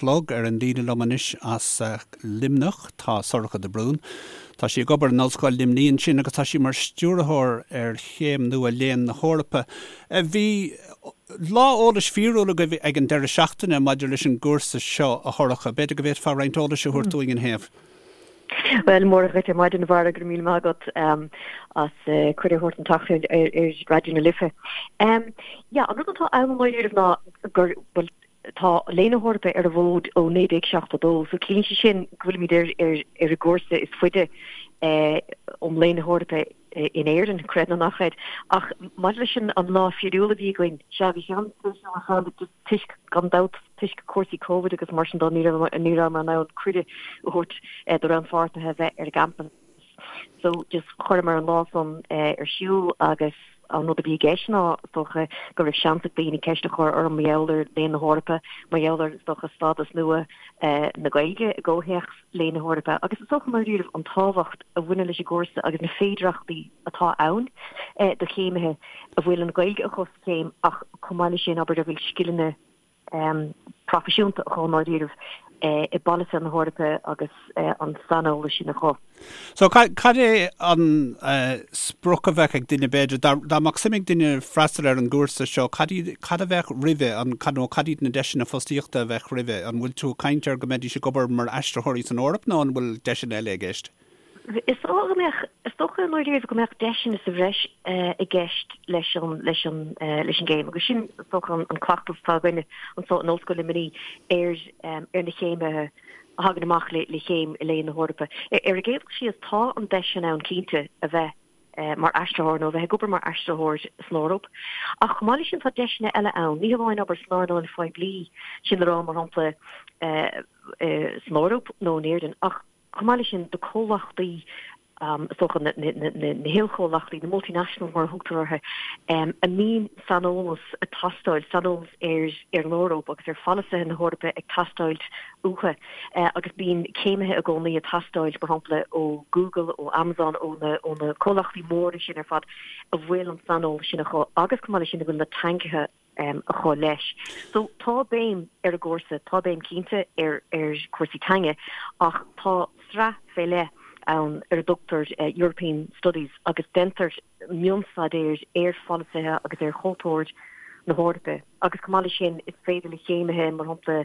chlog. Ar an líne liom anois as Luimneach tá Sorcha de Brún. Tá sí ag obair in Ollscoil Luimnigh ansin agus tá sí mar stiúrthóir ar chéim nua Léann na hEorpa. Bhí lá eolais fíorúil agaibh ag an deireadh seachtaine maidir leis an gcúrsa seo, a Shorcha. B'fhéidir go bhféadfá roinnt eolais a thabhairt dúinn ina thaobh. Bhuel, Mora dhuit ar maidin, a Bharra, go raibh míle maith agat as cuireadh a thabhairt an tseachtain ar Raidió na Life. Yeah, an rud atá ann i ndáiríribh ná gur, bhuel, tá Léann na hEorpa ar an bhfód ó 1972, so ciallaíonn sé sin go bhfuilimid ar ar ar an gcúrsa is faide um Léann na hEorpa in Éirinn, creid nó ná creid. Ach maidir leis an an lá fíorúil a bhí againn, sea, bhí sé an-spéisiúil ar fad, just toisc, gan dabht, toisc cúrsaí Covid agus mar sin de, ní raibh ní rabhamar in ann cuireadh a thabhairt do rannpháirtithe a bheith ar an gcampas. So just chuireamar an lá san ar siúl agus an rud a bhí i gceist ná, is dócha, go raibh seans ag daoine ceist a chur orm mar gheall ar Léann na hEorpa, mar gheall ar, is dócha, stádas nua na Gaeilge i gcomhthéacs Léann na hEorpa agus is dócha, i ndáiríribh, an tábhacht a bhaineann leis an gcúrsa agus na féidearthachtaí atá ann do chéimithe a bhfuil an Ghaeilge acu sa chéim ach chomh maith leis sin, abair, a bhfuil scileanna proifisiúnta acu i ndáiríribh i bpolasaithe na hEorpa agus an saineolas sin acu. So cad é an sprioc a bheadh ag duine b'fhéidir, dá mbeadh suim ag duine freastal ar an gcúrsa seo, cad iad, cad a bheadh roimhe, an, nó cad iad na deiseanna fostaíochta a bheadh roimhe? An bhfuil tú ag caint ar go mbeidís ag obair mar aistritheoirí san Eoraip nó an bhfuil deiseanna eile i gceist? Is dócha go mbeadh, is dócha i ndáiríribh go mbeadh deiseanna sa bhreis i gceist leis an, leis an, leis an gcéim agus sin is dócha an cleachtas atá againne anseo in Ollscoil Luimnigh ar, ar na céimithe a thagann amach le, le céim i Léann na hEorpa. Ar an gcéad dul síos, tá an deis sin ann cinnte a bheith mar aistritheoir nó a bheith ag obair mar aistritheoir san Eoraip. Ach chomh maith leis sin tá deiseanna eile ann, ní hamháin obair san earnáil phoiblí, sin le rá mar shampla san Eoraip nó in Éirinn, ach Chomh maith leis sin, do comhlachtaí, is dócha na hilchomhlachtaí, na multinationals mar a thugtar orthu, a mbíonn saineolas ag teastáil, saineolas ar an Eoraip agus ar pholasaithe na hEorpa ag teastáil uathu. Agus bíonn céimithe i gcónaí ag teastáil, mar shampla, ó Google, ó Amazon, ó na comhlachtaí móra sin ar fad a bhfuil an saineolas sin acu agus chomh maith leis sin a bhfuil na teangacha acu leis. So tá béim ar an gcúrsa, tá béim cinnte ar ar chúrsaí teanga ach tá sraith fé leith ann ar a dtugtar European Studies agus déantar mionstaidéar ar pholasaithe agus ar chultúr na hEorpa agus chomh maith leis sin is féidir le céimithe mar shampla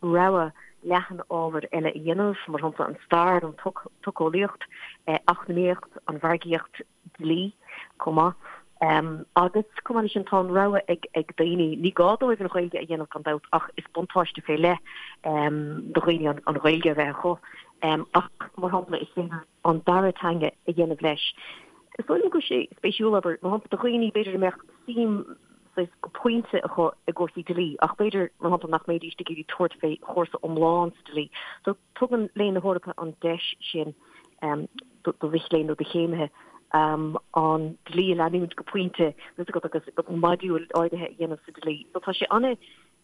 rogha leathan ábhar eile a dhéanamh, mar shampla an stair, an tsocheolaíocht, eacnamaíocht, an mhargaíocht, dlí chomh maith. Agus chomh maith leis sin tá an rogha ag daoine, ní gá dóibh an Ghaeilge a dhéanamh gan dabht ach is buntáiste fé leith do dhaoine an Ghaeilge a bheith acu. Ach mar shampla is féidir an dara teanga a dhéanamh leis. Is dóigh liom go bhfuil sé spéisiúil, abair, mar shampla do dhaoine b'fhéidir a mbeadh suim saghas go pointe acu i gcúrsaí dlí ach b'fhéidir mar shampla nach mbeidís ag iarraidh tabhairt fé chúrsa iomlán sa dlí. So Tugann Léann na hEorpa an deis sin do mhic léinn nó do chéimithe an dlí a leanúint go pointe, tá a fhios agat, agus modúil áirithe a dhéanamh sa dlí. So tá sé ana,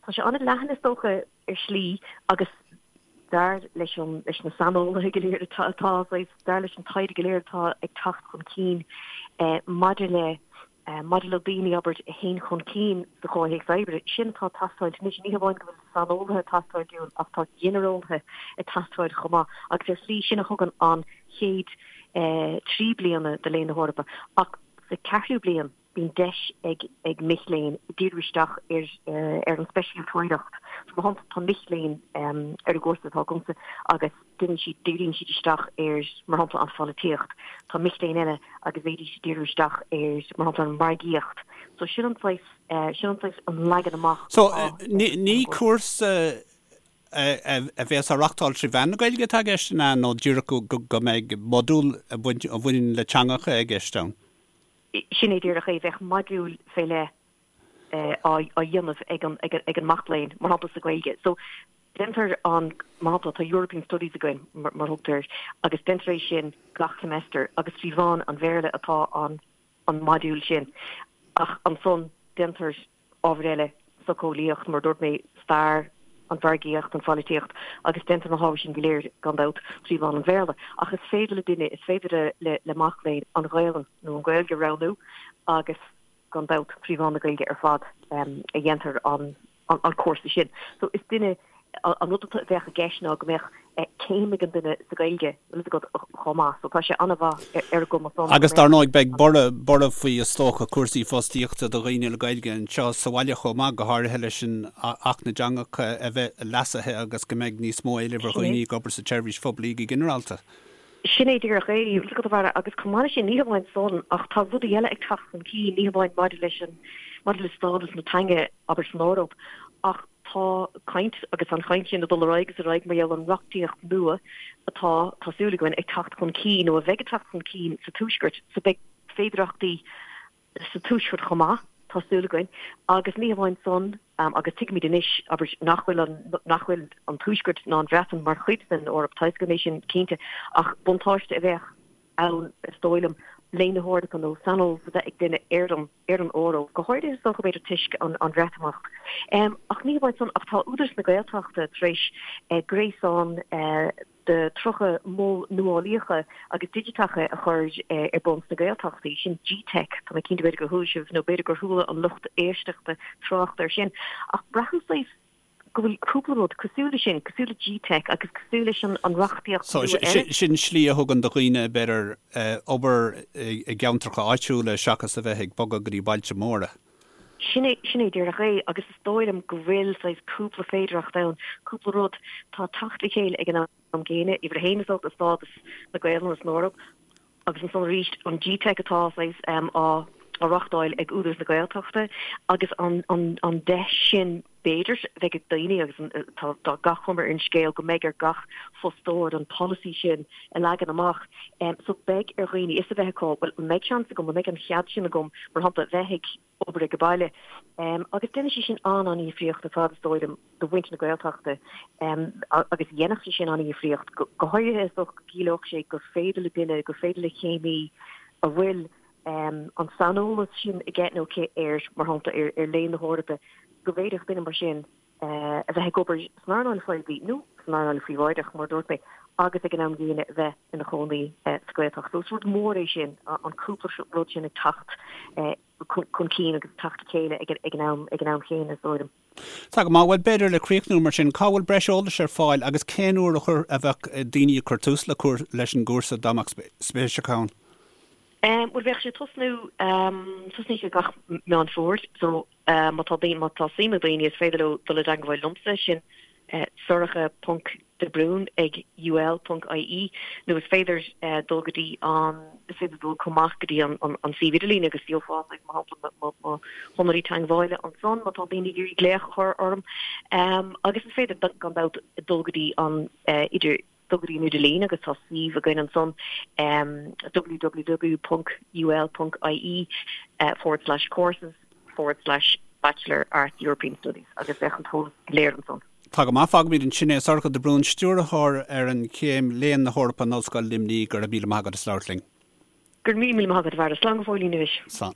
tá sé ana leathan is dócha ar shlí agus dar leis an, leis na saineolaithe go léir atá, atá, dar leis an taighde go léir atá ag teacht chun cinn maidir le Maidir le daoine, abair, a théann chun cinn sa chomhthéacs oibre, sin atá ag teastáil anois. Ní hamháin go bhfuil saineolaithe ag teastáil dúinn ach tá ginearálaithe ag teastáil chomh maith agus ar shlí sin a thugann an chéad 3 bliana de Léann na hEorpa. Ach sa cheathrú bliain bíonn deis ag ag mic léinn díriú isteach ar ar an speisialtóireacht. So mar shampla tá mic léinn ar an gcúrsa atá agamsa agus Déanann siad, díríonn siad isteach ar, mar shampla, an pholaitíocht. Tá mic léinn eile agus bhféadfaidís díriú isteach ar, mar shampla, an mhargaíocht. So sin an saghas, sin an saghas, an leagan amach So, atá ar ní, ní an gcúrsa. cúrsa a bheas á reachtáil trí mheán na Gaeilge atá i gceist, an ea, nó díreach go, go, go mbeidh modúl a bhaint, a bhaineann le teangacha i gceist ann? Sin é díreach é, bheadh modúl fé leith á dhéanamh ag an, ag an mac léinn, mar shampla, sa Ghaeilge. So, Déantar an, mar shampla, tá European Studies againn, mar a thugtar air, agus déantar é sin gach semester agus trí mheán an Bhéarla atá an an modúl sin. Ach ansan déantar ábhair eile, socheolaíocht, mar a dúirt mé, stair, an mhargaíocht, an pholaitíocht, agus déantar na hábhair sin go léir, gan dabht, trí mheán an Bhéarla. Ach is féidir le duine, is féidir le le mac léinn an Ghaelainn nó an Ghaeilge a roghnú agus gan dabht, trí mheán na Gaeilge ar fad a dhéantar an an cúrsa sin. So is duine. An rud a bheadh i gceist ná go mbeadh céim ag an duine sa Ghaeilge, bhfuil fhios agat, chomh maith. So tá sé an-mhaith ar an gcuma san. Agus dar ndóigh beidh borradh, borradh faoi is dócha cúrsaí fostaíochta do dhaoine le Gaeilge anseo sa bhaile chomh maith, go háirithe leis an Acht na dTeangacha a bheith leasaithe agus go mbeidh níos mó éilimh ar dhaoine ag obair sa tseirbhís phoiblí go ginearálta. Sin é díreach é, bhfuil fhios agat a Bharra, agus chomh maith leis sin, ní hamháin san, ach tá rudaí eile ag teacht chun cinn, ní hamháin maidir leis an, maidir le stádas na teanga, abair, san Eoraip, ach tá caint, agus tá an chaint sin ag dul ar aghaidh agus ar aghaidh mar gheall ar an reachtaíocht nua atá, tá súil againn, ag teacht chun cinn, nó a bheidh ag teacht chun cinn sa Tuaisceart, so beidh féidearthachtaí sa Tuaisceart chomh maith, tá súil againn, agus ní hamháin san, agus tuigimid anois, abair, nach bhfuil an, nach bhfuil an Tuaisceart ná an Bhreatain mar chuid den Eoraip, tá a fhios againn é sin cinnte, ach buntáiste a bheadh ann, is dóigh liom, Léann na hEorpa nó saineolas a bheith ag duine ar an, ar an Eoraip, go háirithe is dócha, b'fhéidir, toisc an, an Bhreatimeacht. Ach ní hamháin san, ach tá Údarás na Gaeltachta tar éis gréasán, de 30 mol nuálaíocha agus digiteacha a chur ar bun sna Gaeltachtaí, sin G-Teic, tá mé cinnte b'fhéidir gur chuala sibh nó b'fhéidir gur chuala an lucht éisteachta trácht air sin, ach braithim saghas go bhfuil cúpla rud cosúil leis sin, cosúil le G-Teic agus cosúil leis an reachtaíocht So, nua eile. sin slí a thugann do dhaoine, b'fhéidir, obair i gceantracha áitiúla seachas a bheith ag bogadh go dtí bailte móra. Sin é, sin é díreach é agus is dóigh liom go bhfuil saghas cúpla féidearthacht ann, cúpla rud atá ag teacht le chéile ag an am gcéanna, uimhir a haon is dócha stádas na Gaelainne san Eoraip agus ansan arís an G-Teic atá saghas á á reachtáil ag Údarás na Gaeltachta agus an an an deis sin b'fhéidir a bheidh ag daoine agus tá tá gach cuma ar an scéal go mbeidh ar gach fostóir an polasaí sin a leagan amach. So beidh ar dhaoine fhios a bheith acu, bhuel, an mbeidh seans agam, an mbeidh an chead sin agam, mar shampla, bheith ag obair ag an baile. Agus déanfaidh sé sin an-an-dhifríocht ar fad, is dóigh liom, do mhuintir na Gaeltachta agus dhéanfadh sé sin an-dhifríocht, go háirithe is dócha go gciallódh sé gur féidir le duine, gur féidir le céimí a bhfuil an saineolas sin aige nó aici ar, mar shampla, ar Léann na hEorpa, go bhféadfadh duine mar sin a bheith ag obair san earnáil phoiblí nó san earnáil phríobháideach, mar a dúirt mé, agus ag an am gcéanna a bheith ina chónaí sa Ghaeltacht. So is rud mór é sin, an cúpla rud sin ag teacht chun cinn agus ag teacht le chéile ag an am ag an am chéanna, is dóigh liom. Tá go maith. Bhuel, b'fhéidir le críochnú mar sin, cá bhfuil breis eolais ar fáil agus cén uair a chuir a bheadh daoine ag cur tús le leis an gcúrsa dá mbeadh spéis acu ann? Bhuel, bheadh sé ag tosnú, tosnaíonn sé gach Meán Fómhair, so Má tá má tá suim ag daoine is féidir leo dul i dteangmháil liomsa, sin sorcha ponc de Brún ag ul ponc ie nó is féidir dul go dtí an is féidir dul chomh maith go dtí an an suíomh idirlín agus gheofá mar shampla mo mo shonraí teangmhála ansan má tá daoine ag iarraidh glaoch a chur orm agus is féidir gan dabht dul go dtí an idir dul go dtí an idirlíon agus tá suíomh againn ansan www ponc ul ponc ie forward slash courses forward slash Bachelor Arts European Studies agus bheadh an t-eolas go léir ansan. Tá go maith, fágfaimid ansin é. Sorcha de Brún, Stiúrthóir ar an chéim Léann na hEorpa in Ollscoil Luimnigh, go raibh míle maith agat as labhairt linn. Go raibh míle maith agat, a Bharra. Slán go fóillín anois. Slán.